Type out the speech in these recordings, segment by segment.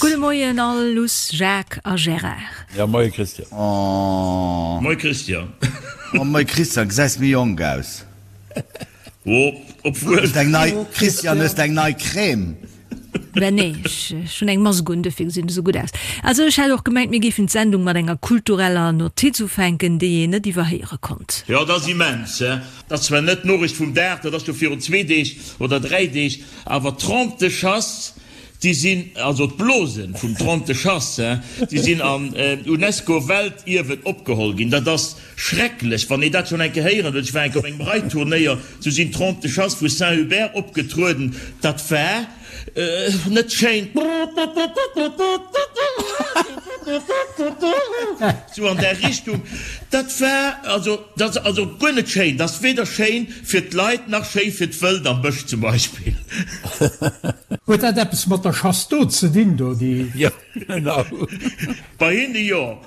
Gudde Moien all, Luss, Jacques a Gérard. Ja, moie Christian. Oh. Moie Christian. Oh, moie Christian, gesäis méi jonk aus. Oh, obwuel. Hues eng nei, Christian, hues de eng nei Crème? Ben nee, ech hunn eng Mask un, dofir gesinn ech esou gutt aus. Also ech hat och gemengt, mir géifen d'Sendung mat enger kultureller Notiz ufänken, déi een net iwwerhéiere konnt. Jo, dat ass immens, he. Dat ass zwar net d'Noriicht vum Dag, dat ass jo virun zwee Deeg oder dräi Deeg, awer d'Trompe de chasse, déi sinn, also d'Blosen vum Trompe de chasse, he, déi sinn an UNESCO-Weltierwen opgeholl ginn. Dat ass Schrecklech, wann ee dat schonn eng Kéier héieren huet. Ech war eng Kéier op engem Reitturnéier, sou sinn d'Trompes de chasse vu Saint-Hubert opgetrueden. Dat war net schéin. Sou an där Richtung. Dat war also, dat ass also guer net schéin. Dat ass weder schéin fir d'Leit nach schéi fir d'Wëld am Bësch zum Beispill. Huet dat eppes mat der Chasse d'eau ze dinn do, déi? Jo, genau. Bei hinne jo.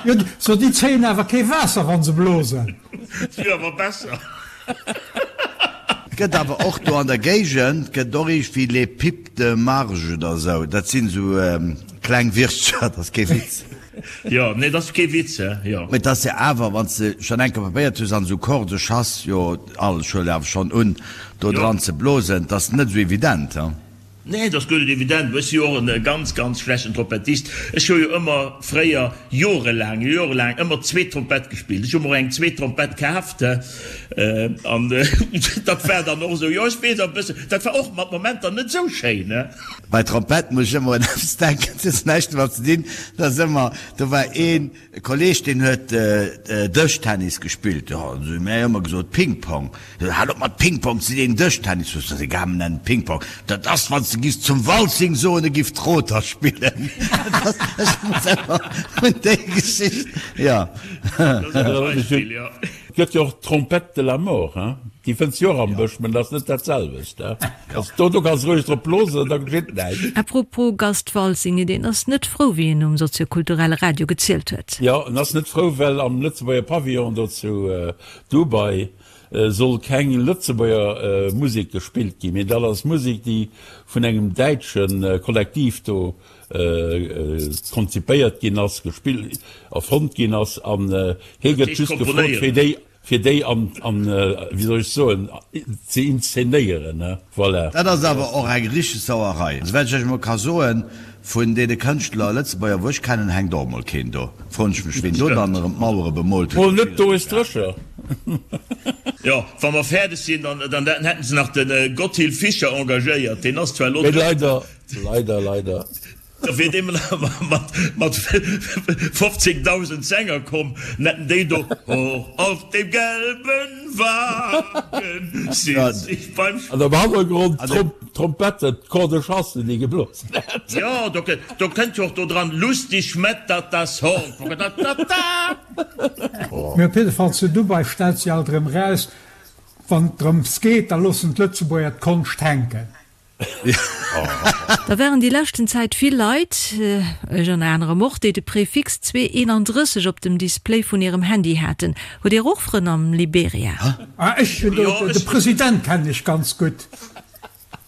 Jo, so déi zéien awer kee Waasser wann se blosen. Et wier awer besser. Et gëtt awer och do an der Géigend gëtt och iergendwéi les pipes de marge oder esou, dat sinn esou kleng Wirtscher, dat ass kee Witz. Jo, nee, dat ass kee Witz, he, jo. Mee et ass jo awer, wann s de schonn eng Kéier probéiert hues an esou Corps de chasse, jo, all, ech huelen awer schonn un, do dran ze blosen, et ass net esou evident, he. Nee, et ass guer net evident. Ech si jo och e ganz, ganz schlechten Trompettist. Ech hu jo ëmmer fréier, jorelaang, jorelaang ëmmer zweet Trompett gespillt. Ech hu mer och eng zweet Trompett kaaft, an dat war dann och esou, jo, ech weess e bëssen, dat war och mat Momenter net esou schéin, ne? Bei Trompett muss ech ëmmer un eppes denken, dat huet näischt domat ze dinn, dat ass ëmmer, do war een, E Kolleg deen huet Dëschtennis gespillt, jo an esou, mir hu ëmmer gesot Ping-Pong, hal op mat Ping-Pong ze deen Dëschtennis, ass egal mir nennen et Ping-Pong, dat ass wann s de giffs zum Waltzing soen e giff Troter spillen, dat ass, ech muss ëmmer un déi Geschicht, jo. Dat ass e Beispill, jo. Et gëtt jo och d'Trompette de la mort, hein, déi fënns jo och am Bësch, mä dat ass net dat selwecht, hein. Also do, do kanns roueg drop blosen, da geschitt näischt. A propos Gast Waltzing, deen ass net frou, wéi en um soziokulturelle Radio gezielt huet. Jo, en ass net frou, well am Lëtzebuerger Pavillon do zu Dubai soll keng Lëtzebuerger Musek gespillt ginn, mee dat ass Musek, déi vun engem däitsche Kollektiv do konzipéiert ginn ass, gespillt, erfonnt ginn ass, an hie gëtt just gefrot, fir déi, fir déi an, an, wéi soll ech soen, ze inszenéieren, ne, voilà. Dat ass awer och eng richteg Sauerei. Souwäit ech Iech emol ka soen, vun deene Kënschtler, Lëtzebuerger, wou ech kennen, hänkt och emol keen do. Froen ech mech, ween do dann erëm d'Mauere bemoolt huet. Mol net Doris Drescher. Jo, wa mer fäerdeg sinn, dann, dann hätten se nach de Gotthilf Fischer engagéiert, deen ass zwar elo. Mee leider Leider, leider. Da wier dee mat 15.000 Sänger komm, hätten déi do Hoch auf dem gelben Wagen sitz ich beim. An am Hannergrond d'Trompetten, d'Cor de chasse, déi geblosen hätt. Jo, do kënnt jo och do dran, Lustig schmettert das Horn, ta-ta-ta-ta. Mee op jidde Fall, zu Dubai stellt sech alt erëm eraus, wann et drëms geet, da loossen d'Lëtzebuerger d'Konscht hänken. Da waren déi leschten Zäit vill Leit, ech ënner anerem och, déi de Prefix 231 op dem Display vun hirem Handy haten. Hutt Dir och Frënn am Liberia? Ah, ech hunn do, de President kennen ech ganz gutt.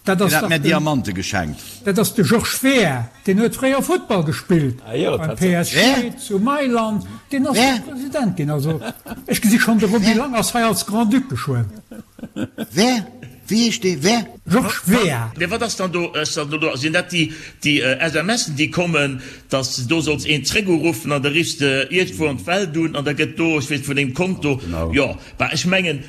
Dat ass Deen hat dach mär den, Diamante geschenkt. dat ass de Georges Weah, deen huet fréier Futtball gespillt beim PSG Wer? zu Mailand, deen ass Wer? do President ginn. Also ech gesi schonn, de Roby Wer? Lang ass hei als Grand-Duc geschwënn. Wer? Wéi heescht dee? Wer? Georges Weah. Mee wat ass dann do, ass dann do, sinn dat déi, déi SMSen, déi kommen, dass de do solls een zréckuruffen an da riffs de iergendwou an d'Welt un an da gëtt do, ech weess, vun dengem Konto, jo, bah, ech mengen,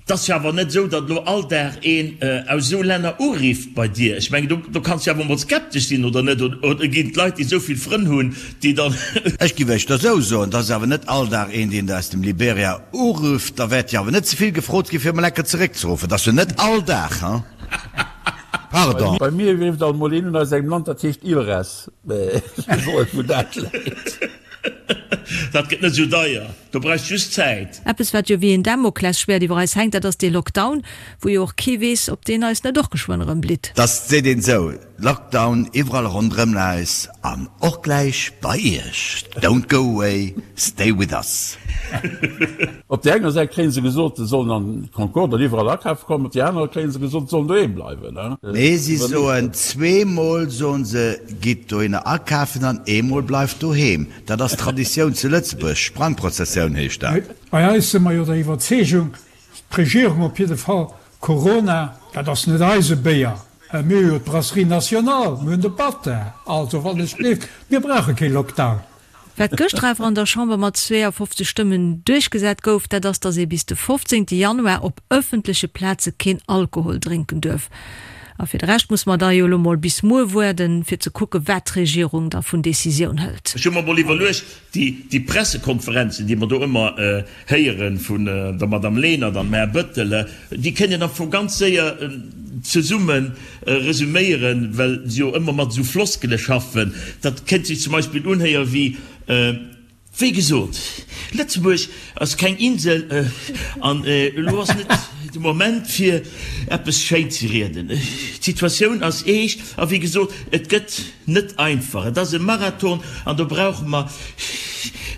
't ass jo awer net esou, datt elo all Dag een aus esou Länner urifft bei dir. Ech mengen, do, do kanns de jo awer emol skeptesch sinn, oder net? Oder ginn d'Leit, déi esou vill Frënn hunn, déi dann. Ech giff éischter esou soen, 't ass awer net all Dag een, deen der aus dem Liberia Urufft, da wäert jo awer net ze vill gefrot ginn, fir emol enker zeréckzeruffen. Dat ass jo net all Dag, hein? Pardon. Bei mir rifft alt mol een un aus engem Land, dat heescht Ilres. Mä ech weess och net, wou dat läit. Dat gëtt net esou deier, do brauchs just Zäit. Eppes, wat jo wéi een Damoklesschwäert iwwer eis hänkt, dat ass dee Lockdown, wou jo och kee weess, ob deen eis net och geschwënn erëm blitt. Dass seet een esou. Lockdown iwwerall ronderëm eis an och gläich bei Iech. Don't go away, stay with us. Op där enger Säit kréie se gesot, se sollen an d'Concorde an iwwerall akafe kommen, op där anerer kréie se gesot, se sollen doheem bleiwen. Nee, si soen zweemol soen se, gitt dohinner akafen an eemol bleift doheem. Dat ass Traditioun zu Lëtzebuerg, Sprangprozessioun heescht dat. Bei eis si mer jo der Iwwerzeegung, d'Regierung op jidde Fall, Corona, dat ass net eise Béier. Mir hu jo d'Brasserie Nationale, mir hunn de Bata, also wann ech gleeft, mir brauche kee Lockdown. Wat gëschter awer an der Chamber mat 52 Stëmmen duerchgesat gouf, dat ass, datt ee bis de 15 Januar op ëffentleche Plaze keen Alkohol drénken duerf. A fir de Rescht musse mer da jo elo mol bis muer woarden, fir ze kucke wat d'Regierung da vun Decisioun hëlt. Ech hu mer mol iwwerluecht, Déi Pressekonferenzen, déi mer do ëmmer héiere vun der Madame Lenert an dem Här Bettel, déi kënnt een am Fong ganz séier zesumme resuméieren, well se jo ëmmer mat esou Floskele schaffen. Dat kënnt sech zum Beispill unhéiere wéi, Wéi gesot, Lëtzebuerg ass keng Insel an elo ass net de Moment fir eppes schéin ze rieden. D'Situatioun ass eescht a wéi gesot, et gëtt Net einfach. Et ass e Marathon an do brauche mer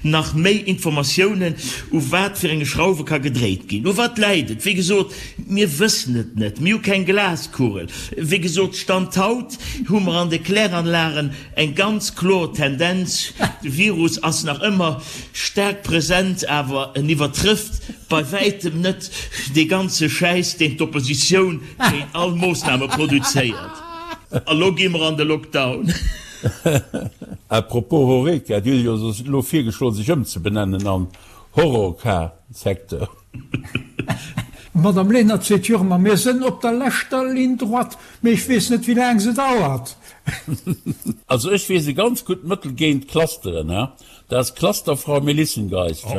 nach méi Informatiounen, u wat fir enge Schrauwe ka gedréit ginn. U wat läit et? Wéi gesot, mir wëssen et net. Mir hu keng Glaskugel. Wéi gesot, Stand haut hu mer an de Kläranlagen eng ganz kloer Tendenz, De Virus ass nach ëmmer staark present, awer en iwwertrëfft bei wäitem net dee ganze Schäiss, deen d'Oppositioun géint all Moossname produzéiert. A lo gi mer an de Lockdown. A propos Horeca, Dir hutt jo elo virgeschloen sech ëmzebenennen an Horrorca-Secteur. D'Madame Lenert seet jo ëmmer, mir sënn op der leschter Ligne droite, mee ech weess net wéi laang se dauert. Also ech weess e ganz gutt Mëttel géint Clusteren, dat ass Clusterfrau Melissengeist.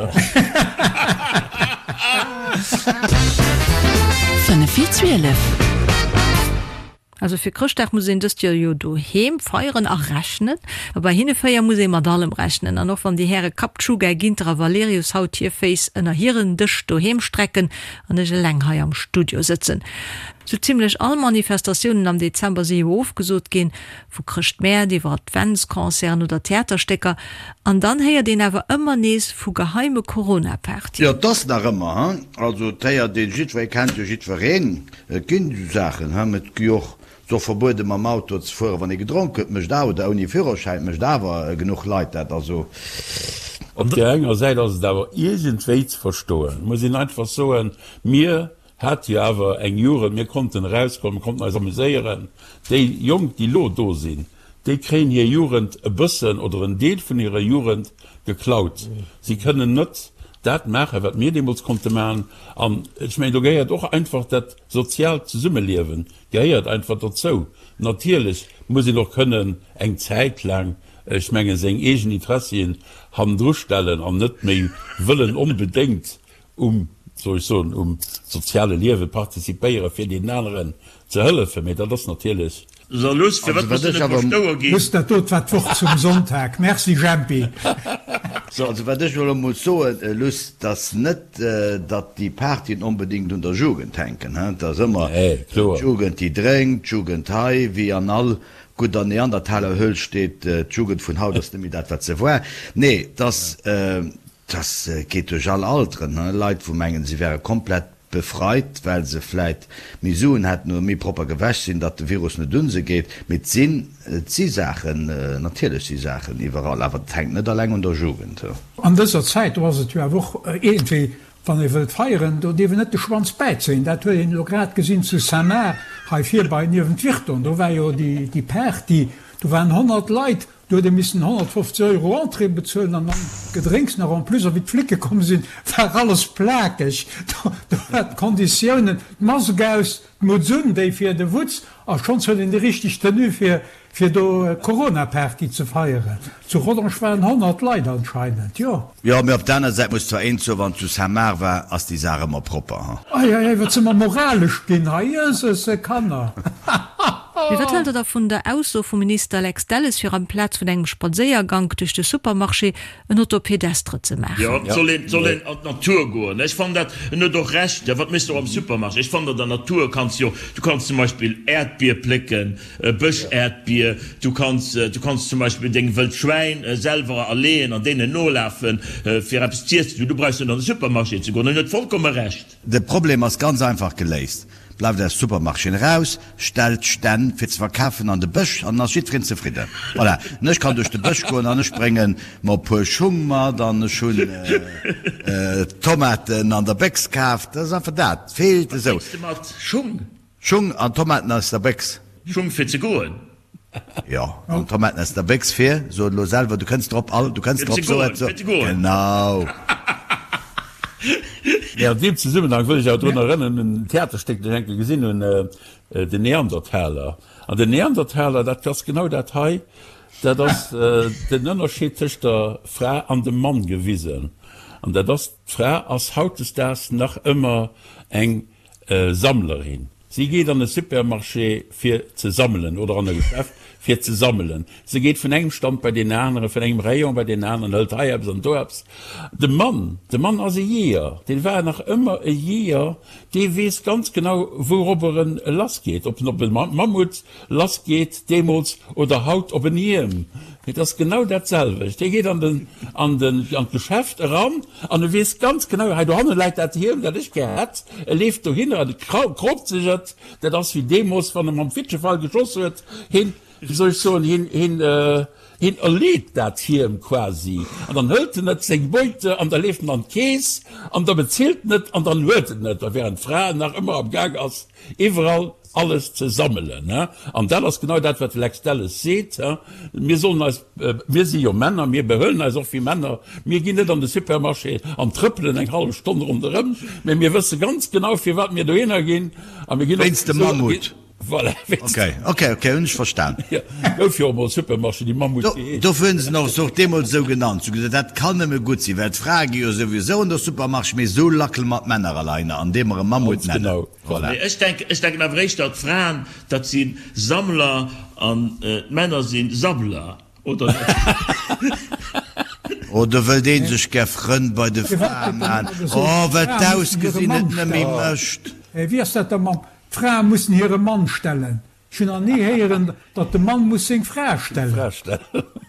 5 vir 12. Also fir Chrëschtdag muss een dëst Joer jo doheem feieren a rechnen. A bei hinne 4 muss ee mat allem rechnen. An och wann déi Häre Kaptschuga, Ginter a Valerius haut hir Féiss ënner hiren Dësch doheem strecken an ech eleng hei am Studio sëtzen. Sou zimlech all Manifestatiounen am Dezember si jo ofgesot ginn, vu Chrëschtmäert iwwer Adventsconcerten oder Theaterstécker. An dann héiert een awer ëmmer nees vu geheime Corona-Partyen. Jo, 't ass nach ëmmer, hein. Also 't héiert een, jiddweree kennt jo jiddwereen. Et ginn esou Saachen, hm, et gi och, et ass och verbuede mam Auto ze fueren, wann ee gedronk huet, mécht awer, oder ouni Führerschäin, mécht awer genuch Leit dat, also. Op där enger Säit ass et awer iergendwéi ze verstoen, muss een einfach soen, mir hate jo awer eng Jugend, mir konnten erauskommen, mir konnten eis amuséieren. Déi Jonk, déi elo do sinn, déi kréien hir Jugend e bëssen oder en Deel vun hirer Jugend geklaut. Si kënnen net dat maachen, wat mir deemools konnte maachen. An ech mengen, do gehéiert och einfach dat soziaalt Zesummeliewen gehéiert einfach dozou. Natierlech muss een och kënnen eng Zäit laang, ech mengen, seng eegen Interessien hannendru stellen an net méi wëllen onbedéngt um, soll ech soen, um soziale Liewe participéieren, fir deenen aneren ze hëllefen. Mee dat ass natierlech. So luss, firwat muss du net verstoue ginn? Luss, dat dot war d'Wort zum Sonntag. Merci Jempi. So, also wat ech elo muss soen, Luss, 't ass net, datt déi Partyen onbedéngt un der Jugend hänken, hein. 't ass ëmmer d'Jugend, déi drénkt, d'Jugend hei, wéi an all gudder Neandertalerhöhl steet, d'Jugend vun haut ass net méi dat, wat se war. Nee, 't ass, 't geet duerch all Alteren, hein, Leit, wou mengen, se wäre komplett befreit, well se vläit méi Suen hätten oder méi propper gewäsch sinn, datt de Virus net un se geet. Mee et sinn, et si Saachen, natierlech si Saachen iwwerall, awer et hänkt net alleng un der Jugend. An dëser Zäit, do ass et jo awer och iergendwéi, wann ee wëllt feieren, do dierf een net de Schwanz bäizéien. Dat huet een elo grad gesinn zu Saint-Marc, hei virbai niewent Virton, do war jo déi Party, do waren 100 Leit, Do huet ee missen 150 Euro Entrée bezuelen an dann d'Gedrénks nach en plus. A wéi d'Flicke komm sinn, war alles plakeg. Do war d'Konditiounen, d'Mask aus, d'Mutz un, déi fir de Wutz, a schonns huet een déi richteg Tenue fir fir do Corona-Party ze feieren. Zu Rodange waren 100 Leit anscheinend, jo. Jo, mee op der aner Säit muss zwar een soen, wann zu Saint-Marc war, ass déi Saach ëmmer propper, ha. Ei, ei, ei, wat si mer moralesch ginn hei, jösesse Kanner! Mee wat haalt der da vun der Ausso vum Minister Lex Delles, fir amplaz vun engem Spadséiergank duerch de Supermarché en. Pédestre ze maachen. Jo, et soll een, soll een an d'Natur goen. Ech fannen dat, en huet och Recht, wat méchs de och am Supermarché? Ech fannen, an der Natur kanns jo, du kanns zum Beispill Äerdbier plécken, Bësch-Äerdbier, du kanns, du kanns zum Beispill deng wëllt Schwäin selwer erleeën an deenen nolafen, fir eppes z'iessen. Du brauchs net an de Supermarché ze goen. En huet vollkomme Recht. De Problem ass ganz einfach geléist, Bleift aus Supermarchéen eraus, stellt Stänn fir ze verkafen an de Bësch an dann ass jiddwereen zefridden. Voilà, an ech kann duerch de Bësch goen an ech bréngen mer e puer Schung mat an ech hunn Tomaten an der Béchs kaf. Dat ass einfach dat, feelt Wat esou. bréngs de mat? Schung? Schung an Tomaten aus der Béchs. Schung fir ze goen? Jo, an Tomaten aus der Béchs fir, so et elo selwer, du kënns drop, all, du kënns Fir drop, ze so goen, et, so, fir ze goen. genau. Mee an deem Zesummenhang wëll ech awer drun erënneren un en Theaterstéck, dat ech eng Kéier gesinn hunn, Den Neandertaler. An den Neandertaler, dat ass genau dat hei, dat ass den Ënnerscheed tëscht der Fra an dem Mann gewisen. An dat ass, d'Fra ass hautdesdaags nach ëmmer eng Sammlerin. Si geet an e Supermarché fir ze sammelen oder an e Geschäft fir ze sammelen. Se geet vun engem Stand bei deen aneren, vun engem Rayon bei deen aneren, hëlt hei eppes an do eppes. De Mann, de Mann ass e Jeeër, dee war nach ëmmer e Jeeër, dee weess ganz genau wouropper en lassgeet, ob en op e Mammut lassgeet deemools oder haut op en Hiem. Et ass genau dat selwecht. Hie geet an den, an den, an d'Geschäft eran an e weess ganz genau, hei dohanne läit dat Hiem, dat ech gär hätt. E leeft dohinner an e kroopt sech et. Dat ass wéi deemools, wann e mam Fitschefeil geschoss huet. Hien, wéi soll ech soen, hien, hien, hien erleet dat Hiem quasi. An dann hëlt en et, seng Beute, an da leeft en an d'Keess an da bezilt en et an dann huet en et. A während d'Fra nach ëmmer am Gaang ass, iwwerall alles ze sammelen. An dat ass genau dat, wat de Lex Delles seet, Mir sollen eis, mir si jo Männer, mir behuelen eis och wéi Männer, mir ginn net an de Supermarché an trëppelen eng hallef Stonn ronderëm, mä mir wësse ganz genau, firwat mir dohinner ginn a mir ginn och. Wéinst dem Mammut. Voilà, wéinst. Okay, okay, okay, hunn ech verstan. Jo, gouf jo och emol Supermarché, déi Mammut geheescht. Dofir hunn se en och deemools esou genannt. Se hu gesot, dat kann nëmme gutt sinn, well d'Frae gi jo souwisou an de Supermarché, mee esou lackele mer d'Männer alleiner, andeem mer e Mammut Ganz nennen. genau. Voilà. Mee ech denken, ech denken awer éischter, d'Fraen, dat si Sammler an d'Männer si Sabbler, oder net? Oh, do wëllt ee sech gär Frënn bei de Frae man. Oh, well d'Ausgesinn et nëmme mécht. Wéi ass dat da mam, d'Frae mussen hire Mann stellen? Ech hunn nach ni héieren, datt de Mann muss seng Fra stellen.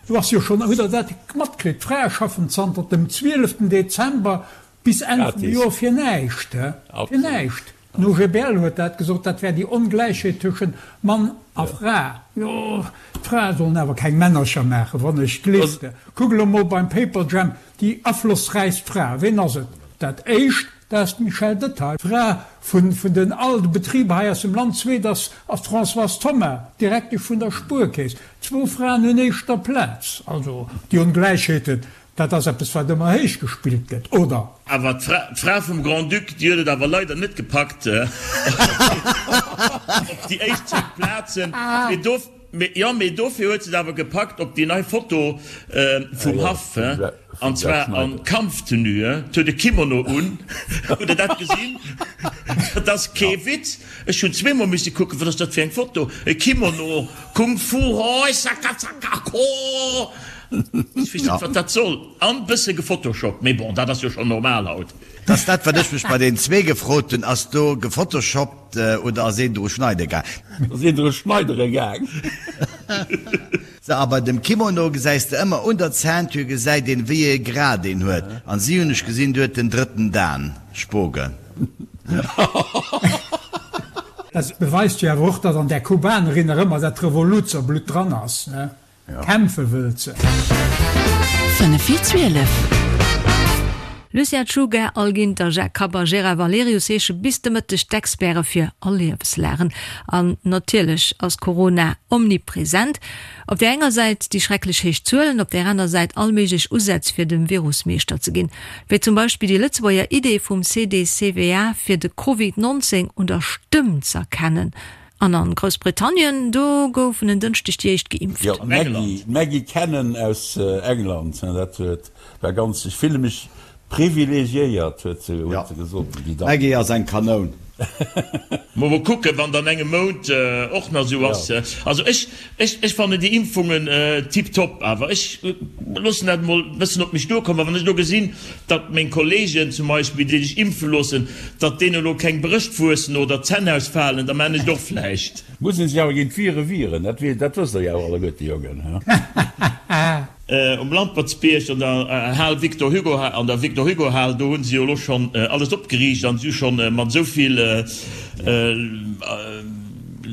Do ass jo schonn, hutt Der dat matkritt, d'Frae schaffen zanter dem 12 Dezember bis Enn vum Joer fir näischt, fir näischt. Den OGBL huet dat gesot, dat wär déi Ongläichheet tëschent Mann a Fra. Jo, d'Frae sollen awer keng Männercher maachen, wann ech gleefte. Kuck elo mol beim Paperjam, déi aflossräichst Fra, ween ass et? Dat éischt, dat ass d'Michèle Detaille, Fra vun den all de Betriber hei aus dem Land. Zweet ass d'Françoise Thoma, Direktesch vun der Spuerkeess. Zwou Fraen un éischter Plaz. Also déi Ongläichheeten, Dat ass eppes, wat ëmmer héich gespillt gëtt, oder? Awer d'Fra vum Grand-Duc, déi huet et awer leider net gepackt op déi éischt 10 Plazen. Jo, mee dofir huet se et awer gepackt op déi nei Foto vum Haff, an zwar a Kampftenue. Huet e Kimono un. Hutt Der dat gesinn? Dat ass kee Witz. Ech hunn zweemol misse kucken, wat ass dat fir eng Foto? E Kimono, Kung Fu, hoi, saka, saka, ko. Ech weess net wat dat soll. An bësse gefotoshoppt, mee bon, dat ass jo schon normal haut. Dass dat wat ech mech bei den zwee gefrot hunn, ass do gefotoshoppt oder ass een dru schneide gaang? Ass een dru schneidere gaang. Sou, a bei dem Kimono gesäis de ëmmer un der Ceinture gesäit een wéi ee Grad een huet, an si hunn ech gesinn, déi huet den drëtten Dan, Spogen. Dat beweist jo awer och, datt an där Kubanerin nach ëmmer dat Revoluzerblutt dran ass, ne? Kämpfe wëllt se. 5 vir 12. Lucien Czuga, Al Ginter, Jacques Kapp a Gérard Valerius heesche bis de Mëtteg d'Experte fir all Liewenslagen. An natierlech ass Corona omnipresent. Op där enger Säit déi schrecklech héich Zuelen, op där aner Säit all méiglech Usätz fir dem Virus Meeschter ze ginn. Wéi zum Beispill déi Lëtzebuerger Idee vum CDCVA fir de Covid 19 un der Stëmm z'erkennen. An an Groussbritannien, do goufen en Dënschdeg déi éischt geimpft. Jo, d'Maggie, d'Maggie Cannon aus England, dat huet, war ganz, ech fille mech privilegiéiert, huet se, huet se gesot, déi Dame. D'Maggie ass eng Kanoun. Mol kucken, wann dann engem Mount och nach esou ass. Also ech, ech, ech fannen déi Impfungen tiptop, awer ech loossen dat emol e bëssen op mech duerkommen. A wann ech elo gesinn, datt meng Kollegen zum Beispill, déi sech impfe loossen, datt deenen elo keng Brëscht wuessen oder d'Zänn ausfalen, da maan ech et och vläicht. Muss een sech awer géint d'Vire wieren, dat dat wësst der jo awer alleguerte, Jongen, he? Um Lampertsbierg an der Hal Victor Hugo, an der Victor Hugo Hal, do hu se jo elo schonn alles opgeriicht an si hu schonn mat esou vill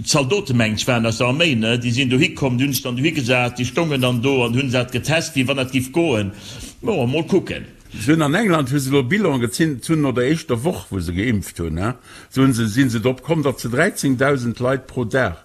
Zaldote mengen ech waren aus der Arméi, ne, déi sinn dohi komm, déi hunn sech dann dohi gesat, déi stongen dann do an hunn dat getest, wéi wann dat giff goen. Bon, mol kucken. Se hunn an England hu se elo Bilan gezinn, hunn no der éischter Woch wou se geimpft hunn, se hunn se, si se drop komm, datt se 13.000 Leit pro Dag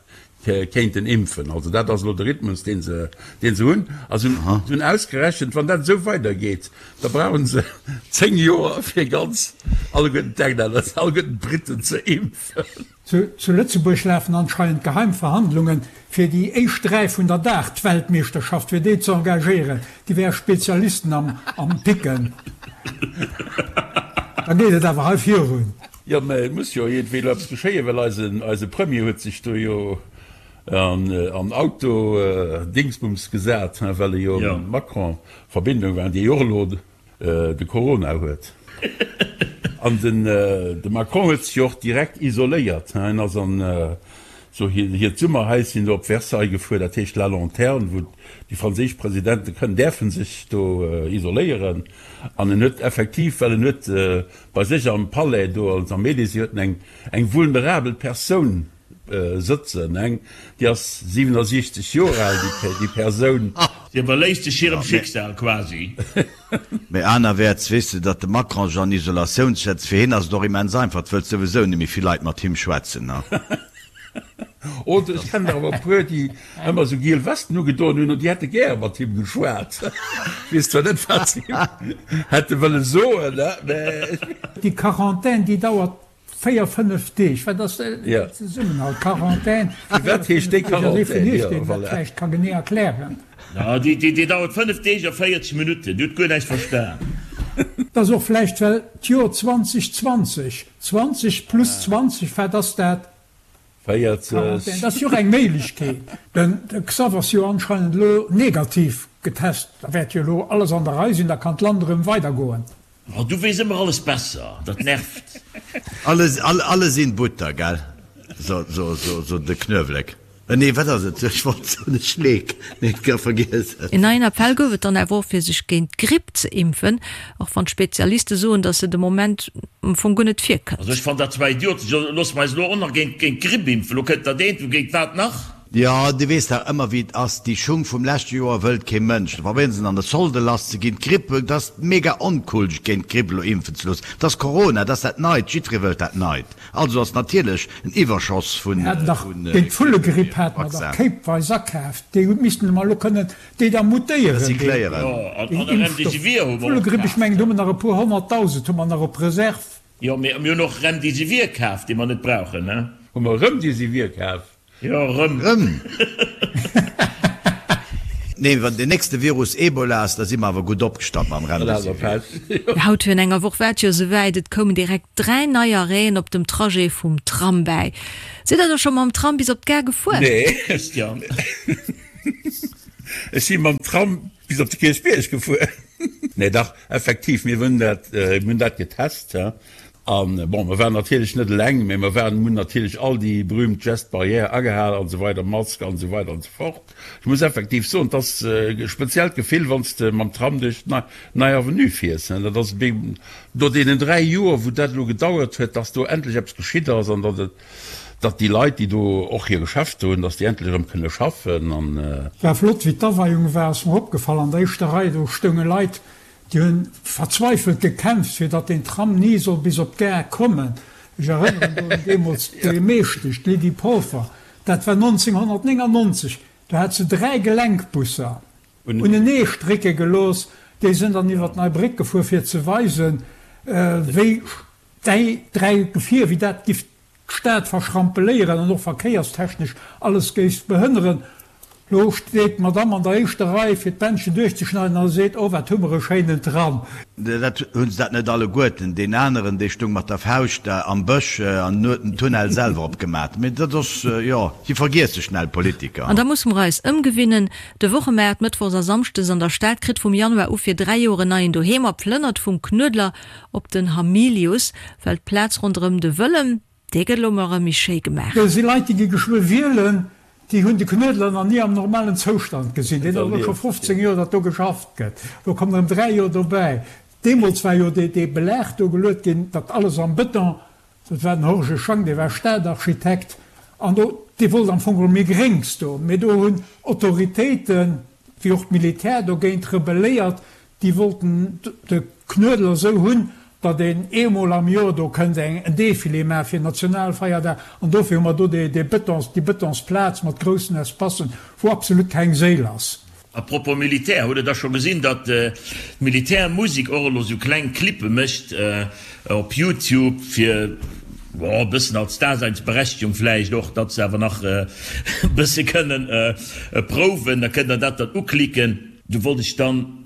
kéinten impfen. Also dat ass elo de Rhythmus dee se, dee se hunn. A se hunn ausgerechent, wann dat esou weidergeet, da brauche se 10 Joer fir ganz alleguerten d'Englänner, alleguerten d'Briten ze impfen. Zu Lëtzebuerg lafen anscheinend geheim Verhandlungen, fir déi éischt 3 vun der Dart-Weltmeeschterschaft, fir déi ze engagéieren. Déi wäre Spezialisten am Picken. Da geet et awer hei virun. Jo, mä et muss jo iergendwéi elo eppes geschéien, well eise Premier huet sech do jo an Auto-Dingsbums gesat, well e jo mam Macron a Verbindung war, dee jo och elo de Corona huet. An den de Macron huet sech jo och direkt isoléiert. Hien ass an esou hiert Summerhäischen do op Versailles gefuer, dat heescht La Lanterne, wou déi franséisch Presidente kënnen, däerfe sech do isoléieren. An en huet effektiv, well en huet bei sech am Palais do, also am Elysée, huet en eng eng vulnerabel Persoun sëtzen, eng déi ass 67 Joer al, déi Persoun. Si iwwerléisst sech hirem Schicksal quasi. Mee anerwäerts weess de, datt de Macron sech an Isolatioun setzt. Fir hien ass et och immens einfach, et wëllt souwisou net méi vill Leit mat him schwätzen. Oder ech kennen der awer e puer, déi ëmmer esou giel Westen ugedoen hunn an déi hätte gäre mat him geschwat. Ech weess zwar net, wat se him hätte wëlle soen, mä. Déi Quarantaine, déi dauert 4, 5 Deeg, wat ass de Zesummenhalt? Quarantaine, Firwat heescht déi Quarantaine? Jo, voilà. Dat vläicht ka genee erklären. Jo, déi dauert 5 Deeg a 40 Minutten. Dir hutt guer näischt verstan. Et ass och vläicht, well d'Joer 2020, 20 plus 20, wat ass dat? 40. Quarantaine, dat ass jo och eng Méiglechkeet. Den Xav ass jo anscheinend elo negativ getest, da wäert jo elo alles an der Rei sinn, da kann d'Land erëm weidergoen. Oh, du weess ëmmer alles besser, dat nervt. Alle sinn Butter, gell? So, so, so, so de Knuewelek. Nee, wat ass et? Ech wollt soen e Schleek, mee et gouf vergiess et. En neien Appell gouf et dann awer och fir sech géint d'Gripp ze impfen, och wann d'Spezialiste soen, datt se de Moment am Fong guer net virkënnt. Also ech fannen dat zwar idiotesch, elo loosse mer eis elo och nach géint d'Gripp impfen, elo kënnt dat eent, géint wat nach? Jo, du weess dach ëmmer wéi et ass, déi Schung vum leschte Joer wëllt kee Mënsch. Da probéieren se an de Solde lass ze ginn. D'Gripp, et ass mega oncool sech géint d'Gripp elo impfen ze loossen. Et ass Corona, et ass dat Neit, jiddweree wëllt dat Neit. Also ass natierlech en Iwwerschoss vun Mir haten dach géint d'Vullegripp hate mer dach Vaccin. kéipweis akaaft. Déi missten mer elo kënnen déi da mutéieren, déi Recycléieren. Jo, an déi a Impfstoff. Remdesivir hu mer och Vullegripp, ech kaaft. mengen do hu mer nach e puer honnertdausend hu mer nach op Reserve. Jo, mee mir hunn och Remdesivir kaaft, dee mer net brauchen, ne? Hu mer Remdesivir kaaft? Jo, rëm. Rëm? Nee, wann deen nächste Virus Ebola ass, da si mer awer gutt opgestallt mam Remdesivir. Haut virun enger Woch war et jo esouwäit, et koumen direkt 3 nei Arrêten op dem Trajet vum Tram bäi. Sidd der da scho mam Tram bis op d'Gare gefuer? Nee, Christian. Ech si mam Tram bis op de Kierchbierg gefuer. Nee, dach, effektiv, mir hunn dat, mir hunn dat getest. An, bon, mer waren natierlech net eleng, mä mer waren, hunn natierlech all déi berühmt Gestes barrières agehal an esou weider, Mask an esou weider an esou fort. Ech muss effektiv soen, et ass e speziellt Gefill, wann s de mam Tram duerch d'Nei Avenue fiers. Dat ass no deenen 3 Joer, wou dat elo gedauert huet, dass do endlech eppes geschitt ass an datt et, datt déi Leit, déi do och hir Geschäfter hunn, datt déi endlech erëm kënne schaffen an. War flott wéi d'Aweiung war, ass mer opgefall, an der éischter Rei do stounge Leit, Déi hunn verzweifelt gekämpft, fir datt deen Tram ni soll bis op d'Gare kommen. Ech erënneren do un deemools d'Buergermeeschtesch, d'Lydie Polfer, dat war 1999, do hat se 3 Gelenkbusser unenee strécke gelooss, déi sinn dann iwwer d'Nei Bréck gefuer, fir ze weisen, wéi déi 3 Gefier, wéi dat giff d'Stad verschrampeléieren an och verkéierstechnesch alles géif behënneren. Lo steet d'Madame an der éischter Rei fir d'Bändchen duerchzeschneiden a seet, Oh, wat hu mer e schéinen Tram! Dat hu se dat net alleguerten. Deen aneren, dee stung mat der Fauscht da am Bësch an huet den Tunnel selwer opgemat. Mee dat ass, jo, si vergiesse schnell, Politiker. An da musse mer eis ëmgewinnen. De Wochemaart mëttwochs a samschdes an der Stad kritt vum Januar u fir 3 Joer en neien Doheem a plënnert vum Knuedler op den Hamilius, well d'Plaz ronderëm de Wëllem, Dee gëtt elo mol erëm méi schéi gemaach. Do si Leit, déi gi geschwë wielen, déi hunn de Knuedler nach ni am normalen Zoustand gesinn. Deen ass elo scho 15 Joer, datt do geschafft gëtt. Elo kommen erëm 3 Joer dobäi. Deemools war jo dee Belag do geluet ginn, datt alles am Bëton, dat war den Horge Schang, dee war Stadarchitekt, an do, dee wollt am Fong geholl méi Gréngs do. Mee do hunn Autoritéiten, wéi och d'Militär dogéint rebelléiert, Déi wollten de Knuedler esou hunn, datt een eemol am Joer do kënnt eng en Defilé maache fir Nationalfeierdag. An dofir hu mer do dee Betons, déi Betonsplaz mat groussen Espacen, wou absolut keng Séil ass. A propos Militär, hutt der da scho gesinn, datt d'Militärmusek och elo sou kleng Clippe mécht op Youtube fir, bon, e bëssen als Daseinsberechtigung vläicht och, datt se awer nach e bësse kënnen prouwen, da kënnt der dat dann uklicken. Do wollt ech dann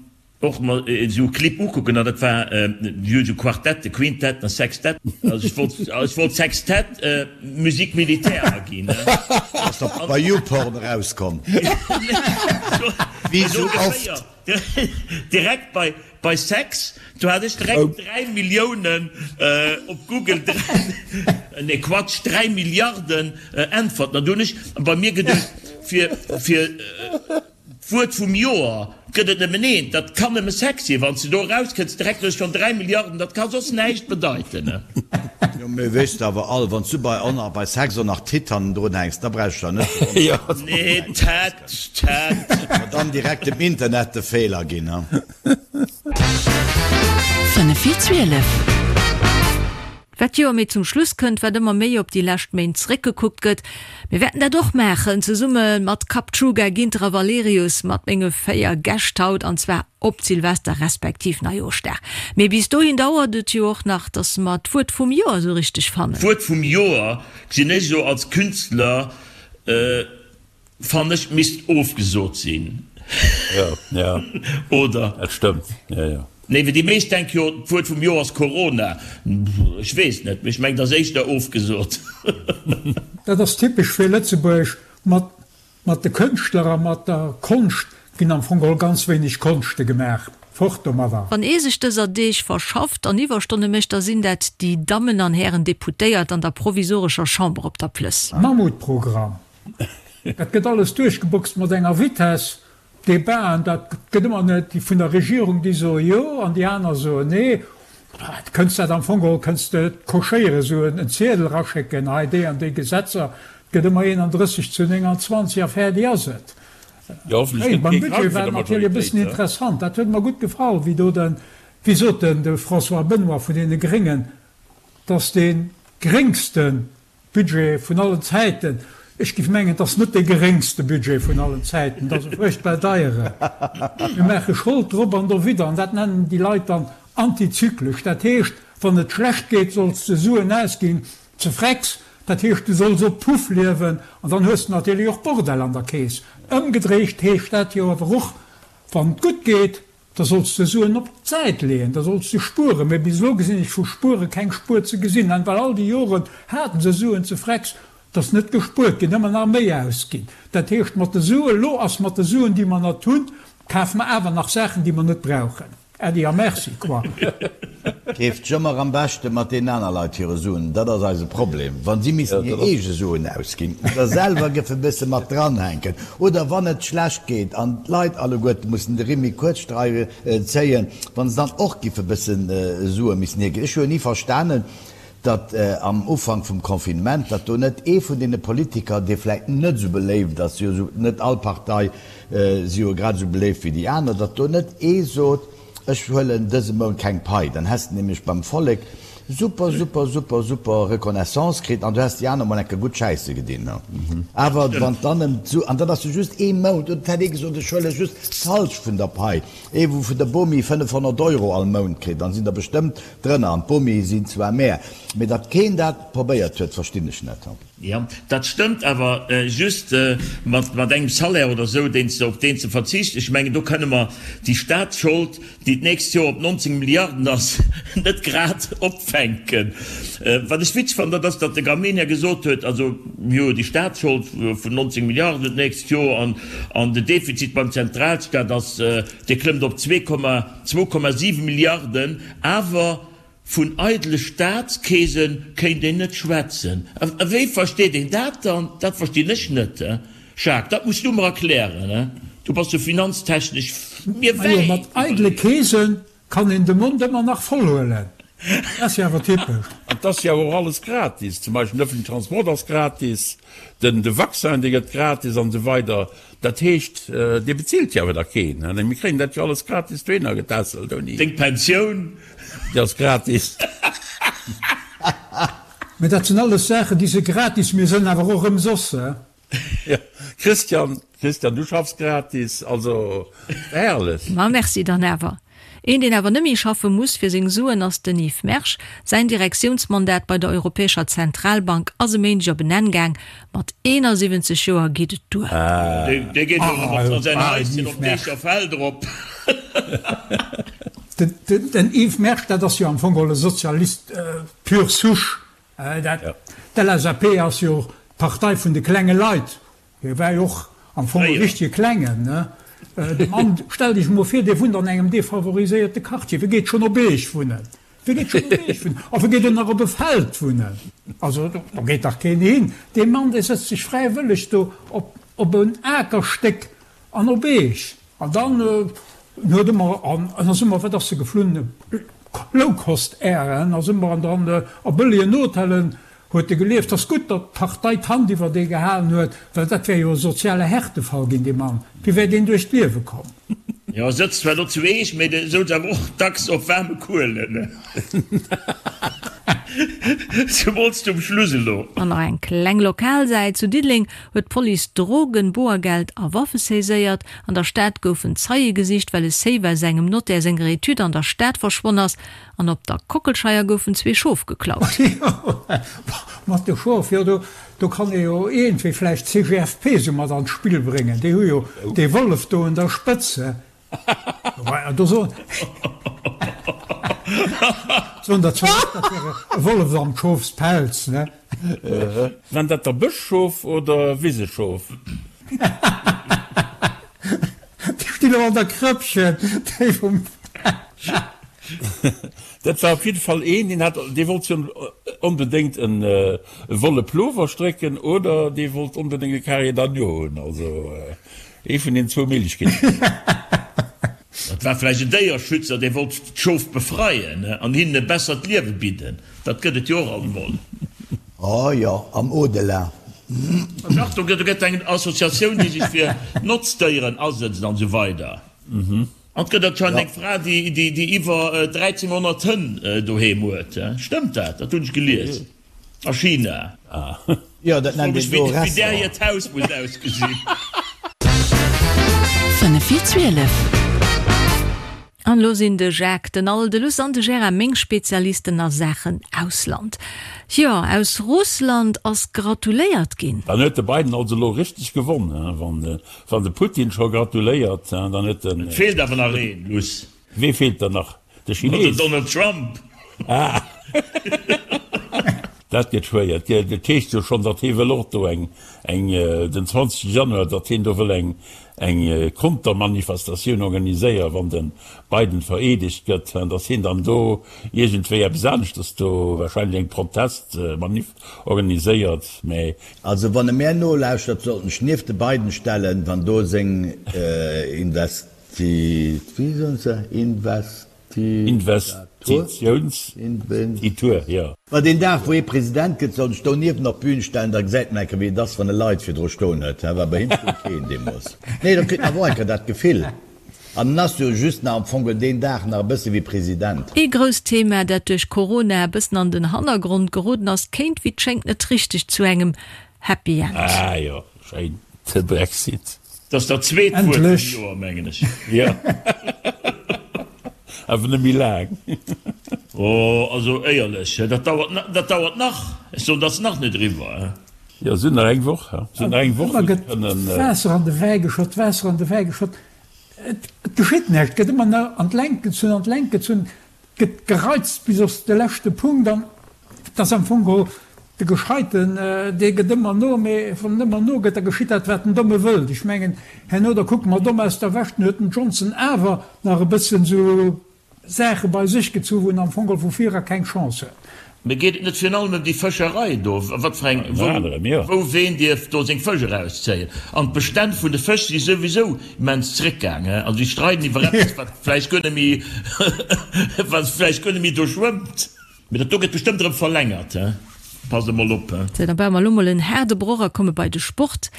och mer esou e Clip ukucken an dat war jo esou Quartette, Quintetten a Sextetten. Also ech wollt, ech wollt Sextett Musique militaire aginn. Ass da bei YouPorn erauskomm? Wéi esou oft. Direkt bei, bei Sex, do hat ech direkt 3 Milliounen op Google, nee Quatsch, 3 Milliarden Äntwerten. An do hunn ech bei mir geduecht, fir, fir. D'Wuert vum Joer gëtt et nëmmen eent, dat kann nëmme Sex sinn. Wann s de do erauskënns, direkt hues schonn 3 Milliarden, dat ka soss näischt bedeiten. Jo, mee weess de awer all, wann s du bei on a bei Sex och nach Titt hannendrun hänks, da brauchs du der net ze wonneren, dass Nee, Tet, Tet. mer dann direkt dem Internet de Feeler ginn, ha. 5 vir 12. Wat d'Joer méi zum Schluss kënnt, wat ëmmer méi op déi lescht Méint zeréckgekuckt gëtt. Mir wäerten dat och maachen, zesumme mat Kapchuga, Ginter a Valerius, mat menge 4 Gäscht haut, an zwar op Silvester respektiv Neijooschdag. Mee bis dohin dauert et jo och nach, dass mer d'Wuert vum Joer esou richteg fannen. D'Wuert vum Joer gesinn ech elo als Künstler. Fannen ech misst ofgesot sinn. Jo, jo. Oder? Dat stëmmt, jo, jo. Nee, well déi meescht denke jo, d'Wuert vum Joer ass Corona. Ech weess net, mee ech mengen, et ass éischter ofgesot. Dat ass typesch fir Lëtzebuerg. Mat, mat de Kënschtler a mat der Konscht ginn am Fong geholl ganz wéineg Konschte gemaach. Fort domadder! Wann ee sech dëser Deeg verschafft an Iwwerstonne mécht, da sinn dat déi Dammen an Hären Deputéiert an der provisorescher Chamber op der Plëss. Mammutprogramm! Dat gëtt alles duerchgeboxt mat enger Vitesse. Debaten, dat gëtt ëmmer net, déi vun der Regierung, déi soe jo an déi aner soen nee. Du kënns dat am Fong geholl kënns de et cochéieren, esou en Ziedel eraschécken, hei déi an déi Gesetzer. Et gëtt ëmmer 31 zu 29 a fäerdeg ass et. Jo, hoffentlech gëtt kee Beim Budget krank war vun et der natierlech e bëssen Majoritéit. interessant. Dat huet mer gutt gefall, wéi do den, wéi sot en, de François Benoy vun deene Gréngen, dass dee gréngste Budget vun allen Zäiten. Ech géif mengen, et ass net dee geréngste Budget vun allen Zäiten, et ass e fuerchtbar deieren. Mir maache Schold drop an dowidder, an dat nennen déi Leit dann antizyklesch. Dat heescht, wann et schlecht geet, solls de Suen ausginn, ze frecks, dat heescht, du solls op Puff liewen, an dann hues de natierlech och Bordell an der Keess. Ëmgedréicht heescht dat jo awer och, wann et gutt geet, Da solls de Suen op d'Säit leeën, da solls de spueren. Mee bis elo gesinn ech vu spuere keng Spuer ze gesinn. An well all déi Joren haten se Suen ze frecks, et ass net gespuert ginn, ëmmer nach méi ausginn. Dat heescht mat de Suen, elo ass mat de Suen déi mer nat hunn, kafe mer awer nach Saachen déi mer net brauchen. Äddi a Merci, quoi. Keeft jëmmer am beschte mat deenen aner Leit hire Suen. Dat ass eise Problem. Wa si missten hir eege Suen ausginn oder selwer géife bësse mat dranhänken oder wann et schlecht geet an d'Leit alleguerte mussen de Rimm méi kuerz zéien, wa se dann och géife bësse Sue missen hierginn. Ech hu jo ni verstanen, datt am Ufank vum Confinement, datt do net ee vun deene Politiker, dee vläicht net esou beléift ass, jo esou net all Partei si jo grad esou beléift wéi déi aner, datt do net ee sot, Ech huelen dëse Mount keng Pai, dann häss de nämlech beim Vollek super, super, super, super Reconnaissance kritt an du häss déi aner mol enke gutt schäisse gedinn. Awer wann dann ëm d'Su, an dann ass jo just ee Mount, oder et hätt ee gesot, ech huele just d'Halschent vun der Pai, ee wou vun der Bomi 500 Euro all Mount kritt, dann sinn der bestëmmt drënner, an d'Bomie sinn zwar mär, mee datt keen dat probéiert huet, verstinn ech net. Jo, dat stëmmt, awer just mat engem Salaire oder esou, deen s de, op deen s de verzichts. Ech mengen, do kënne mer déi Staatsschold, déi d'nächst Joer op 19 Milliarden ass, net grad opfänken. Wat ech witzeg fannen, dat ass, datt de Gramegna gesot huet, also mir hu déi Staatsschold vun 19 Milliarden d'nächst Joer an den Defizit beim Zentralstaat ass, dee klëmmt op 2,7 Milliarden, awer Vun eidele Staatskeese kéint een net schwätzen. A wéi versteet een dat dann? Dat verstinn ech net, Jacques, dat muss du mer erklären, du bass jo finanztechnesch mir Majo, wäit mat eidele iwwerleeën. Keese kann een de Mond ëmmer nach voll huelen. Dat ass jo awer typesch. An 't ass jo och alles gratis, zum Beispill den öffentlichen Transport ass gratis, den de Vaccin dee gëtt gratis an esou weider. Dat heescht, dee bezilt jo awer da keen. Mir kréien dat jo alles gratis dohinner getässelt ouni. Deng Pensioun. Déi ass gratis. Mä dat sinn alles Saachen, déi si gratis, mee sënn awer och ëmsoss. Jo, Christian, Christian, du schaffs gratis, also herrlech. Ma merci dann awer. Een deen awer nëmmi schaffe muss fir seng Suen ass den Yves Mersch. Säin Direktiounsmandat bei der Europäescher Zentralbank ass e Méindeg op en Enn gaang. Mat 71 Joer geet et duer. Dee geet elo erëm a säin Haischen op d'Eecherfeld erop. Den Yves Mersch, dat ass jo am Fong geholl e Sozialist pure souche. D'LSAP ass jo d'Partei vun de klenge Leit. Hie war jo och am Fong e richtege Klengen, ne? De Mann, stellt Iech emol vir, dee wunnt an engem defavoriséierte Quartier, wie geet schonn op Eech wunnen? Wie geet schonn op Eech wunnen? A wie geet och nach op e Feld wunnen? Also, do geet dach keen hin. Dee Mann, dee sëtzt sech fräiwëlleg do op, op en Akerstéck an op Eech. An dann en huet ëmmer, an en ass ëmmer, wat ass se geflunn, Low-Cost Air, en ass ëmmer an dann a bëllegen Hotellen Huet e gelieft? Ass gutt, datt d'Partei d'Hand iwwer dee gehalen huet, well dat wär jo e soziale Härtefall ginn, dee Mann. Wéi wär deen duerch d'Liewe komm? Jo, e sëtzt zwar do zu Eech, mee de souz awer och dacks op waarme Kuelen. Zemools zum Schluss elo. An nach eng kleng lokal Säit, Zu Diddeleng huet d'Police Drogen, Boergeld a Waffe saiséiert. An der Stad goufen Zeie gesicht, well e Safe aus engem Notaire senger Etüd an der Stad verschwonn ass. An op der Kockelscheier goufen zwee Schof geklaut. Jo, mat de Schof, jo, do, do kann ee jo iergendwéi vläicht d'CGFP sou mat an d'Spill bréngen. Déi hu jo dee Wollef do un der Spëtz. Do soen, soen der zwar och, dat wär e Wollef am Schofspelz, ne? Waren dat da Bëschschof oder Wiseschof? Déi stinn och an der Krëppchen, déi vum. Dat war op jidde Fall een, deen hat, dee wollt jo onbedéngt e wolle Plover strécken oder dee wollt onbedéngt e Carrier d'agneau hunn. Also ee vun den zwou Méiglechkeeten. Dat war vläicht en Déierschützer, dee wollt d'Schof befreien an hinnen e bessert Liewe bidden. Dat gëtt et jo och alt emol. Oh jo, am Au-delà. Dach, do gëtt eng Associatioun, déi sech fir Notzdéieren asëtzt an esou weider. An et gëtt anscheinend eng Fra, déi iwwer 1300 Hënn doheem huet. Stëmmt dat? Dat hunn ech gelies. A China. Jo, dat nennt een do Wéi där Restaurant. hiert Haus muss ausgesinn. 5 vir 12. An elo sinn de Jacques, den Al, de Luss an de Gérard meng Spezialisten a Saachen Ausland. Jo, aus Russland ass gratuléiert ginn. Dann huet de Biden also elo richteg gewonn, he? Wann de Putin scho gratuléiert, dann huet den. Et feelt awer nach een, Luss. Wee feelt dann nach? De Chines? Den Donald Trump. Ah! Dat gëtt schwéier. Et heescht jo schonn, datt hie wëll och do eng, eng, den 20 Januar, datt hien do wëll eng, eng Kontermanifestatioun organiséieren, wann de Biden vereedegt gëtt, datt hien dann do iergendwéi eppes aneschters do, wahrscheinlech eng Protestmanif organiséiert. Mä. Also wann e mär nolauschtert, sollt en sech nieft de Biden stellen, wann do seng Invest. Wéi soen se? Investitiouns-Titur, jo. Ma deen Dag, wou hie President gëtt, soll sech donieft op d'Bühn stellen, da gesäit en eng Kéier, wéi et ass, wann e Leit virdru stoen huet. Hä, well bei him stoung keen deemools. Nee, da kritt en awer och eng Kéier dat Gefill. An en ass jo just nach am Fong deen Dag nach e bësse wéi President. Ee grousst Thema, dat duerch Corona e bëssen an den Hannergrond geroden ass, kéint wéi 't schéngt net richteg zu engem Happy End. Ah jo, schéin, de Brexit. Dat ass dat zweet Wuert vum Joer, mengen ech. Jo, awer net méi laang. Oh, also éierlech, dat dauert, dat dauert nach. Ech soen, dat ass nach net eriwwer. Jo, se hunn nach eng Woch, se hunn nach eng Woch, wou se kënnen. Ëmmer gëtt Waasser an de Wäi geschott, Waasser an de Wäi geschott. Et geschitt näischt, et gëtt ëmmer nach an d'Längt gezunn, an d'Längt gezunn, et gëtt gereizt bis op de leschte Punkt an et ass am Fong geholl de Gescheiten, dee gëtt ëmmer no, mee wann en ëmmer nogëtt, da geschitt dat, wat den Domme wëllt. Ech mengen, herno, da kucke mer domm aus der Wäsch, dann huet den Johnson awer nach e bëssen esou Saache bei sech gezu wou en am Fong geholl vu vir era keng Chance huet. Mee geet et net virun allem ëm déi Fëscherei do? Wat fir eng, wou, wou ween dierf do seng Fësch erauszéien? An d'Bestänn vun de Fësch si souwisou immens zréckgaang, he? Also déi streiden iwwer eppes, wat vläicht guer net méi, wat vläicht guer net méi do schwëmmt. Mee dat do gëtt bestëmmt erëm verlängert, he? Passt emol op, he? Sou, da baue mer elo mol en haarde Broch a komme bei de Sport.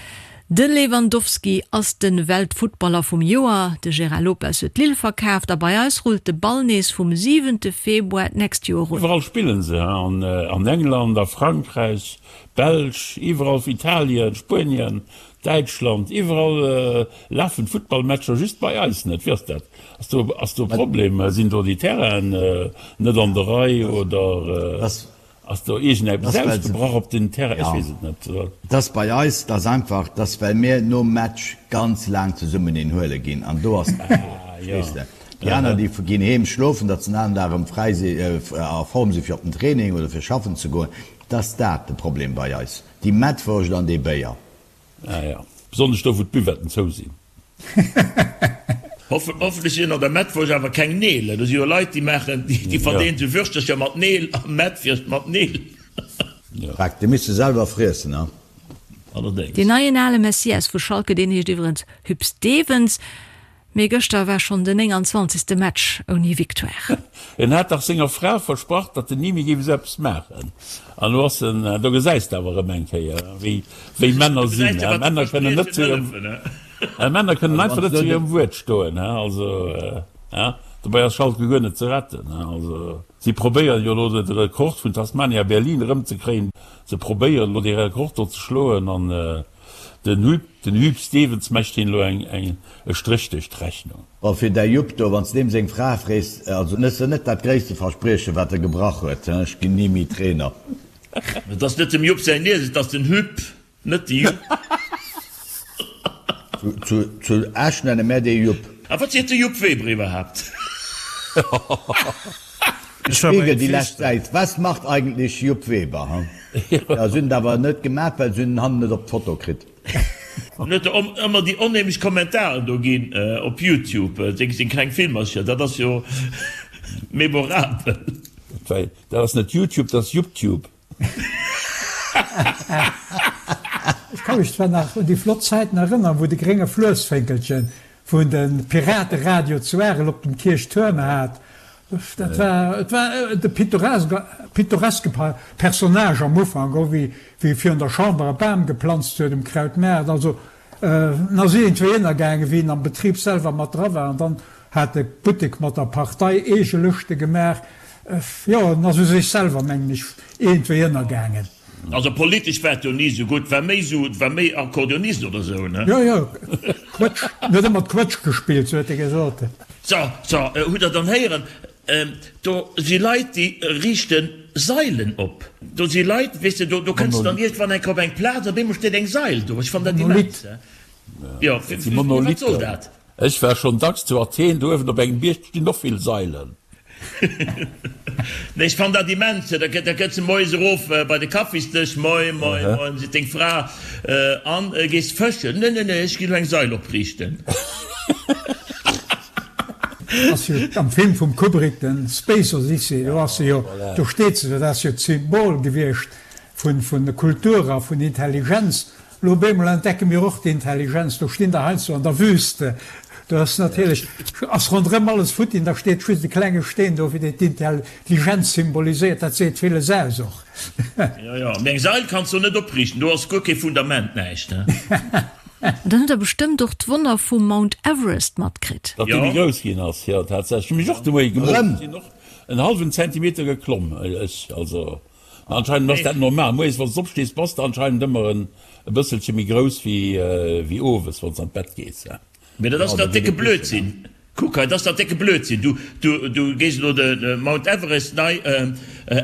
De Lewandowski ass de Weltfuttballer vum Joer, de Gérard Lopez huet Lille verkaaft a bei eis rullt de Ball nees vum siwente Februar d'nächst Joer un. Iwwerall spillen se, an England, a Frankräich, Belsch, iwwerall, Italien, Spuenien, Däitschland, iwwerall lafen d'Futtballmatcher, just bei eis net. Wéi ass dat? Ass do ass do e Problem? Sinn do déi Terrainen net an der Rei oder? Ass do iergendeppes ausgebrach op den Terrain? Ech weess et net. Et ass bei eis, et ass einfach, et ass well mir nom Match ganz laang zesummen een huele ginn an do ass d'Gefor, verstees de? Déi aner déi ginn heem schlofen, datt se den aneren Dag erëm fräi si, a Form si fir op den Training oder fir schaffen ze goen. Et ass dat de Problem bei eis, déi Mettwurscht an dee Béier. Ah ja, besonnesch do wou d'Buvetten zou sinn. Hoffentlech sinn an der Mettwurscht awer keng Neel. Do si jo Leit déi maachen, déi verdeelen sou Würschtercher mat Neel a Mettwürscht mat Neel. Dreck, déi misst de selwer friessen, ha? Allerdéngs. Deen neien ale Messias vu Schalke, deen heescht iwwerens Huub Stevens. Mee gëschter war schonn den 29. Match ouni Victoire. En hat dach senger Fra versprach, datt en ni méi géif esou eppes maachen. An elo ass en, do gesäis de awer erëm eng Kéier, wéi, wéi Männer sinn. Männer kënnen net zu hirem, Männer kënnen einfach net zu hirem Wuert stoen. Also, dobäi ass Schalke guer net ze retten. Also, si probéieren jo elo de Rekord vun Tasmania Berlin erëmzekréien. Se probéieren elo dee Rekord do ze schloen an Den Huub, den Huub Stevens mecht heen elo eng, eng, e Stréch duerch d'Rechnung. Bon, fir däi Jupp do, wann s deem seng Fra frees, also net ass net dat gréisste Verspriechen, wat e gebrach huet, he, ech ginn ni méi Trainer. Et ass net dem Jupp säin Nies, et ass den Huub, net de Jupp. Zu, zu Esch nenne mär dee Jupp. A wat seet de Jupp Weber iwwerhaapt? Spiegel, déi lescht Säit, Was macht eigentlich Jupp Weber, hm? Ja, se hunn et awer net gemaach, well se hunn en hannen net op d'Foto kritt. En huet der ëmmer déi onheemlech Kommentaren do ginn op Youtube, seng kleng Filmercher, dat ass jo memorabel. Dat ass net Youtube, dat ass Jupptube. Ech ka mech zwar nach un déi flott Zäiten erënnern, wou de grénge Fluessfénkelchen wou en de Pirateradio zu Arel op dem Kierchtuerm hat. Dat war, et war de pittoreske Personnage am Ufank, och wéi e virun der Chamber e Bam geplanzt huet um Krautmaart. Also en ass iergendwéi ënnergaangen, wéi en am Betrib selwer mat dra war. An dann hat e Buttek mat der Partei eege Lëschte gemaach. Jo, en ass u sech selwer, mengen ech, iergendwéi ënnergaangen. Also politesch war et jo ni esou gutt, war méi esou, war méi Akkordeonist oder esou, ne? Jo, jo, Quëtsch, en huet ëmmer d'Quëtsch gespillt, sou huet e gesot. So, so, hutt Der dann héieren, do si Leit, déi riichte Sailen op. Do si Leit, weess de, do, do kënns de dann iergendwann eng Kéier op eng Plaz, op eemol steet eng Sail do. Ech fannen dat immens, he. Jo, wat soll dat? Ech war schonn dacks zu Athen, do uewen op engem Bierg stinn och vill Sailen. Nee, ech fannen dat immens. Da kënns de moies erof bei de Kaffisdësch, Moin, moin, moin, seet deng Fra, an gees fëschen? Nee, nee, nee, ech ginn elo eng Sail opriichten. Ass jo am Film vum Kubrick, den Space Odyssey, do ass se jo, do steet se, dat ass jo d'Symbol gewiescht vun Kultur a vun Intelligenz. Lo op eemol entdecke mir och d'Intelligenz, do stinn der heiansdo an der Wüste, do ass natierlech, ass ronderëm alles futti an da steet just e klenge Steen do, fir deen d'Intelligenz symboliséiert. Dat seet villes aus och. Jo, jo, mee eng Sail kanns du net opriichten, do ass guer kee Fundament, näischt, he. An dann hutt der bestëmmt och d'Wonner vum Mount Everest matkritt. Datt dee méi grouss ginn ass, jo, tatsächlech. Hu mech och de Moie gemooss, ech sinn och en hallwen Zentimeter geklomm, ech, also. Anscheinend ass dat normal. Moies wanns de opstees bass de anscheinend ëmmer en e bësselche méi grouss wéi wéi owes wanns an d'Bett gees. Mee dat ass dach décke Blödsinn. Kuck hei, dat ass dach décke Blödsinn. Du, du, du gees elo de Mount Everest nei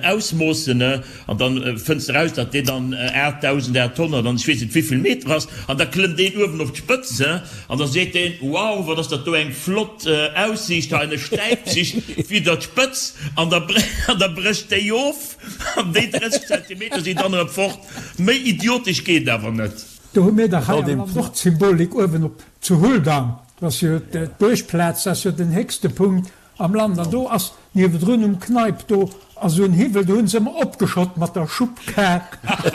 ausmoossen, ne, an dann fënns de raus, datt deen dann 8.800 an ech weess net wéivill Meter ass, an da klëmmt een uewen op d'Spëtz, he, an da seet deen, Wow, wat ass dat do eng flott Aussiicht hei, an e stäipt sech widder d'Spëtz, an da, an da brécht déi of, an déi 30 Zentimeter sinn dann erëm fort. Méi idiotesch geet awer net. Do hu mir dach hei am Land och d'Symbolik uewen op zu Huldang. Dat ass jo d'Buergplaz, dat ass jo den héchste Punkt am Land. An do ass niewedrun um Kneipp, do ass esou en Hiwwel, do hunn se ëmmer opgeschott mat der Schubbkar.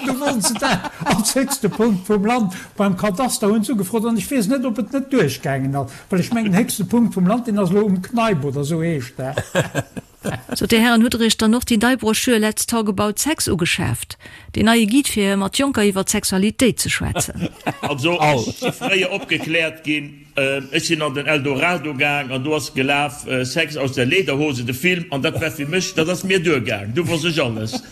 Do wollten se dat als héchste Punkt vum Land beim Kadaster hunn se ugefrot. An ech weess net, ob et net duerchgaangen ass, well ech mengen, den héchste Punkt vum Land, deen ass elo um Kneipp oder esou heescht dat. Sot, Dir Hären, hutt Der Iech dann och déi nei Broschür Let's Talk About Sex ugeschaaft? Deen neie Guide fir mat Jonker iwwer d'Sexualitéit ze schwätzen. Also ech si fréier opgekläert ginn, ech sinn an den Eldorado gaang an do ass gelaf Sex aus der Lederhose, de Film, an dat war fir mech, dat ass mir duergaang, du wosst ech alles.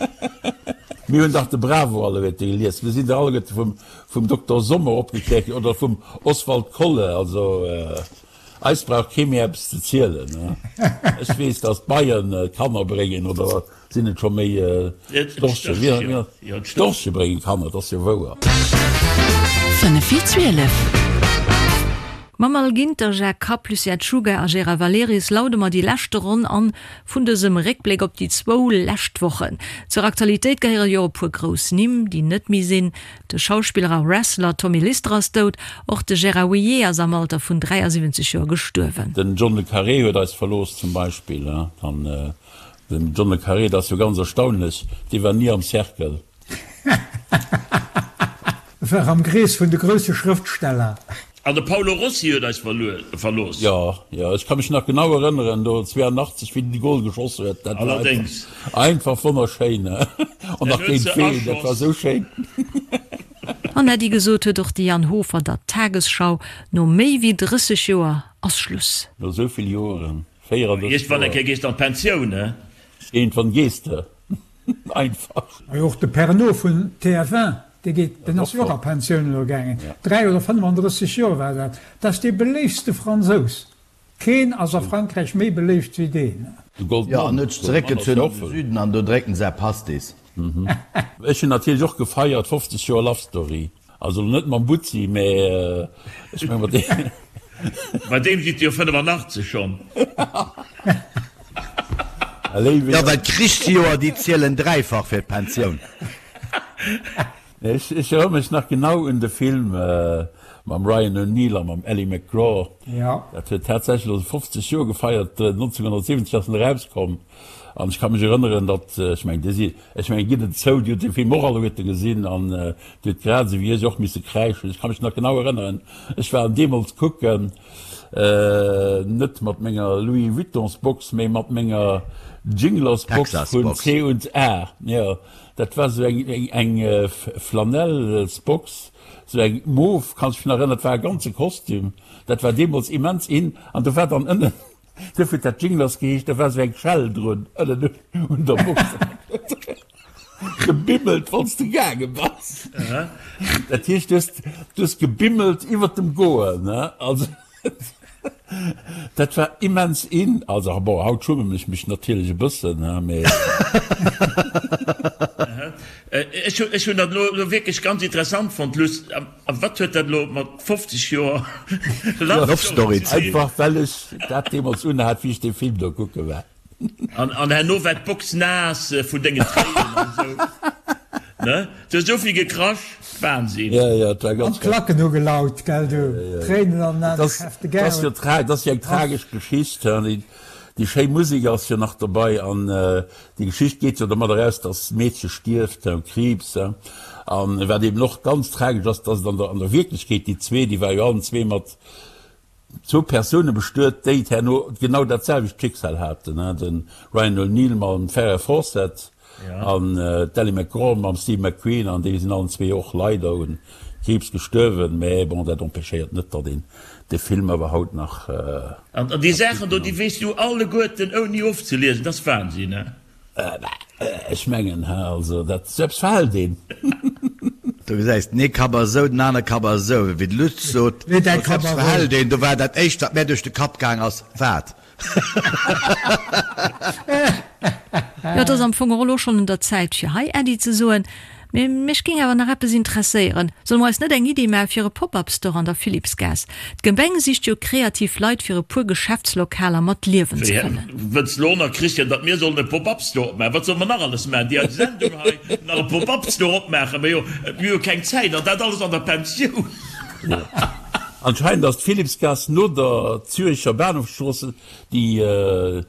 Mir hunn dach de Bravo alleguerte gelies, mir sinn dach alleguerte vum Dokter Sommer opgekläert ginn oder vum Oswald Kolle, also. Eis brauch kee méi eppes ze zielen. Ech weess, datt d'Beien Kanner bréngen, oder sinn et scho méi d'Storche? D'Storche bréngen Kanner, dat ass jo wouer. 5 vir 12. Mam Al Ginter, Jacques Kapp, Lucien Czuga a Gérard Valerius laude mer déi leschte Ronn an vun dësem Réckbléck op déi zwou lescht Wochen. Zur Aktualitéit gehéiere jo e puer grouss Nimm, déi net méi sinn. De Schauspiller a Wrestler Tommy Lister ass dout. Och de Gérard Houllier ass am Alter vun 73 Joer gestuerwen. Den John le Carré huet eis verlooss zum Beispill. An den John le Carré, dat ass jo ganz erstaunlech, dee war ni am Cercle. E war am Krees vun de grousse Schrëftsteller. An de Paolo Rossi huet eis verlooss. Jo, jo, ech ka mech nach genau erënneren, do 82, wéi den de Gol geschoss huet. Dat war Allerdéngs. einfach wonnerschéin. An nach géint ween, dat war esou schéin. An Äddi gesot huet och de Jan Hofer der Tagesschau, no méi wéi 30 Joer ass Schluss. No esou vill Joeren, 34 Iergendwann eng Kéier gees de an d'Pensioun, he? Iergendwann gees de. Einfach. Majo och de Pernod vun TF1, dee geet, deen ass jo och a Pensioun elo gaangen, 3 oder 35 Joer war dat. Dat ass dee beléiftste Fransous. Keen ass a Frankräich méi beléift wéi deen. De Goldman. Jo, an huet sech zeréckgezunn an de Süden an do drécken se Pastis. Ech hunn natierlech och gefeiert, 50 Joer Love Story. Also elo net mam Butzi, mä ech meng mat deem. Bei deem sidd Dir jo 85 schonn. Jo, well d'Krichsjoer, déi zielen dräifach fir d'Pensioun. Ech erënnere mech nach genau un de Film mam Ryan O'Neal a mam Ali MacGraw. Dat huet tatsächlech elo 50 Joer gefeiert, 1970 ass en erauskomm. An ech ka mech erënneren, datt, ech mengen, Dir sidd, ech mengen, gitt et zou, Dir hutt dee Film och alleguerte gesinn an Dir hutt grad esou wéi ech och misse kräischen. Ech ka mech nach genau erënneren, ech war en deemools kucken, net mat menger Louis Vuittons-Box, mee mat menger Jinglers-Box vun C und A. Jo, dat war esou eng, eng Flanellsbox, esou eng mof, kann ech mech nach erënneren, dat war e ganze Kostüm, dat war deemools immens in. An do war dann ënnen Duerfir huet dat Jinglers geheescht, da war sou eng Schell drun ënnen un der Box. Gebimmelt, wann s de gaange bass. Dat heescht, du hues, du hues gebimmelt iwwer dem Goen, ne? Also, dat war immens in. Also, bon, haut schummen ech mech natierlech e bëssen, ne, mee. Ech hunn dat elo wierklech ganz interessant fonnt, Luss. A wat huet dat elo mat 50 Joer Love Story ze dinn? Einfach well ech dat deemools unhat, wéi ech dee Film do kucke war. An herno war d'Box naass vun dengen Tréinen an esou, ne? Du hues esou vill gekrasch, Wahnsinn! Jo, jo, et war An ganz d'Klacken hu gelaut, gell du? Tréinen an den Aen, geschäfte Gär. Dat ass jo eng tragesch Geschicht. Déi schéi Musek ass jo nach dobei an déi Geschicht geet jo domat eraus, dass d'Meedche stierft u Kriibs. An wat eben och ganz tragesch ass, dass et an der an der Wierklechkeet déi zwee, déi war jo allen zwee mat zwou Persoune bestuet, déi herno genau dat selwecht Schicksal haten, de Ryan O'Neal mam Farrah Fawcett An d'Ali MacGraw mam Steve McQueen, an déi sinn allen zwee och leider un Kriibs gestuerwen, mä bon, dat empêchéiert net, datt een de Film awer haut nach. An déi Saachen do, déi weess du alleguerten ouni ofzeliesen, dat ass Wahnsinn, he? Ech mengen, he, also dat, sou eppes verhält een. Do gesäis den ee Kapp ass esou, den aner Kapp ass esou. Wéi de Lutz sot, Lee däi Kapp eppes a Rou. verhält een. Do war dat éischt, wat mär duerch de Kapp gaang ass, Wat? Jo, et ass am Fong och elo schonn un der Zäit fir hei Äddi ze soen. Mee mech géing awer nach eppes interesséieren. Solle mer eis net eng Iddi maache fir e Pop-up-Store an der Philippsgaass? D'Gemeng sicht jo kreativ Leit fir e puer Geschäftslokaler mat Liewen ze fëllen. Wëlls lo nach, Christian, datt mir sollen e Pop-up-Store opmaachen? Wat solle mer nach alles maachen? Déi eis Sendung hei, nach e Pop-up-Store opmaachen? Mä jo, mir hu keng Zäit, an dat alles an der Pensioun. Anscheinend ass d'Philippsgaass no der Züricher Bahnhofsstrooss déi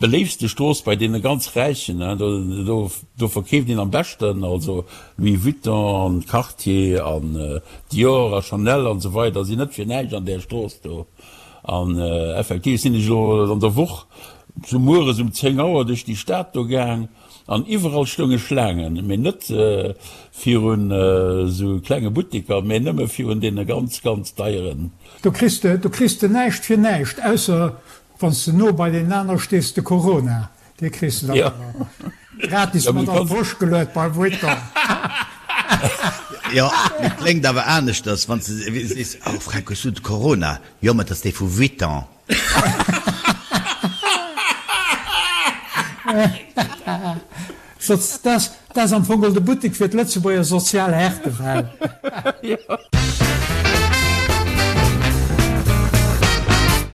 beléiftste Strooss bei deene ganz Räichen. Do verkeeft een am beschten, also Louis Vuitton an Cartier an Dior a Chanel an esou weider sinn net fir näischt an där Strooss do. An effektiv sinn ech elo an der Woch sou mueres um 10 Auer duerch déi Stad do gaang an iwwerall stounge Schlaangen, mee net virun esou klenge Butteker, mee nëmme virun deene ganz, ganz deieren. Do kriss de, do kriss de näischt fir näischt, ausser wann s de no bei deenen aner stees, de Corona, dee kriss de dann awer gratis mat an d'Posch geluet beim Vuitton. Jo, mee kléngt awer aneschters, wann s de sees, Oh Fränk, hues du de Corona? Jo, mä et ass dee vu Vuitton. Dat ass am Fong de Buttek fir d'Lëtzebuerger sozial Härtefäll.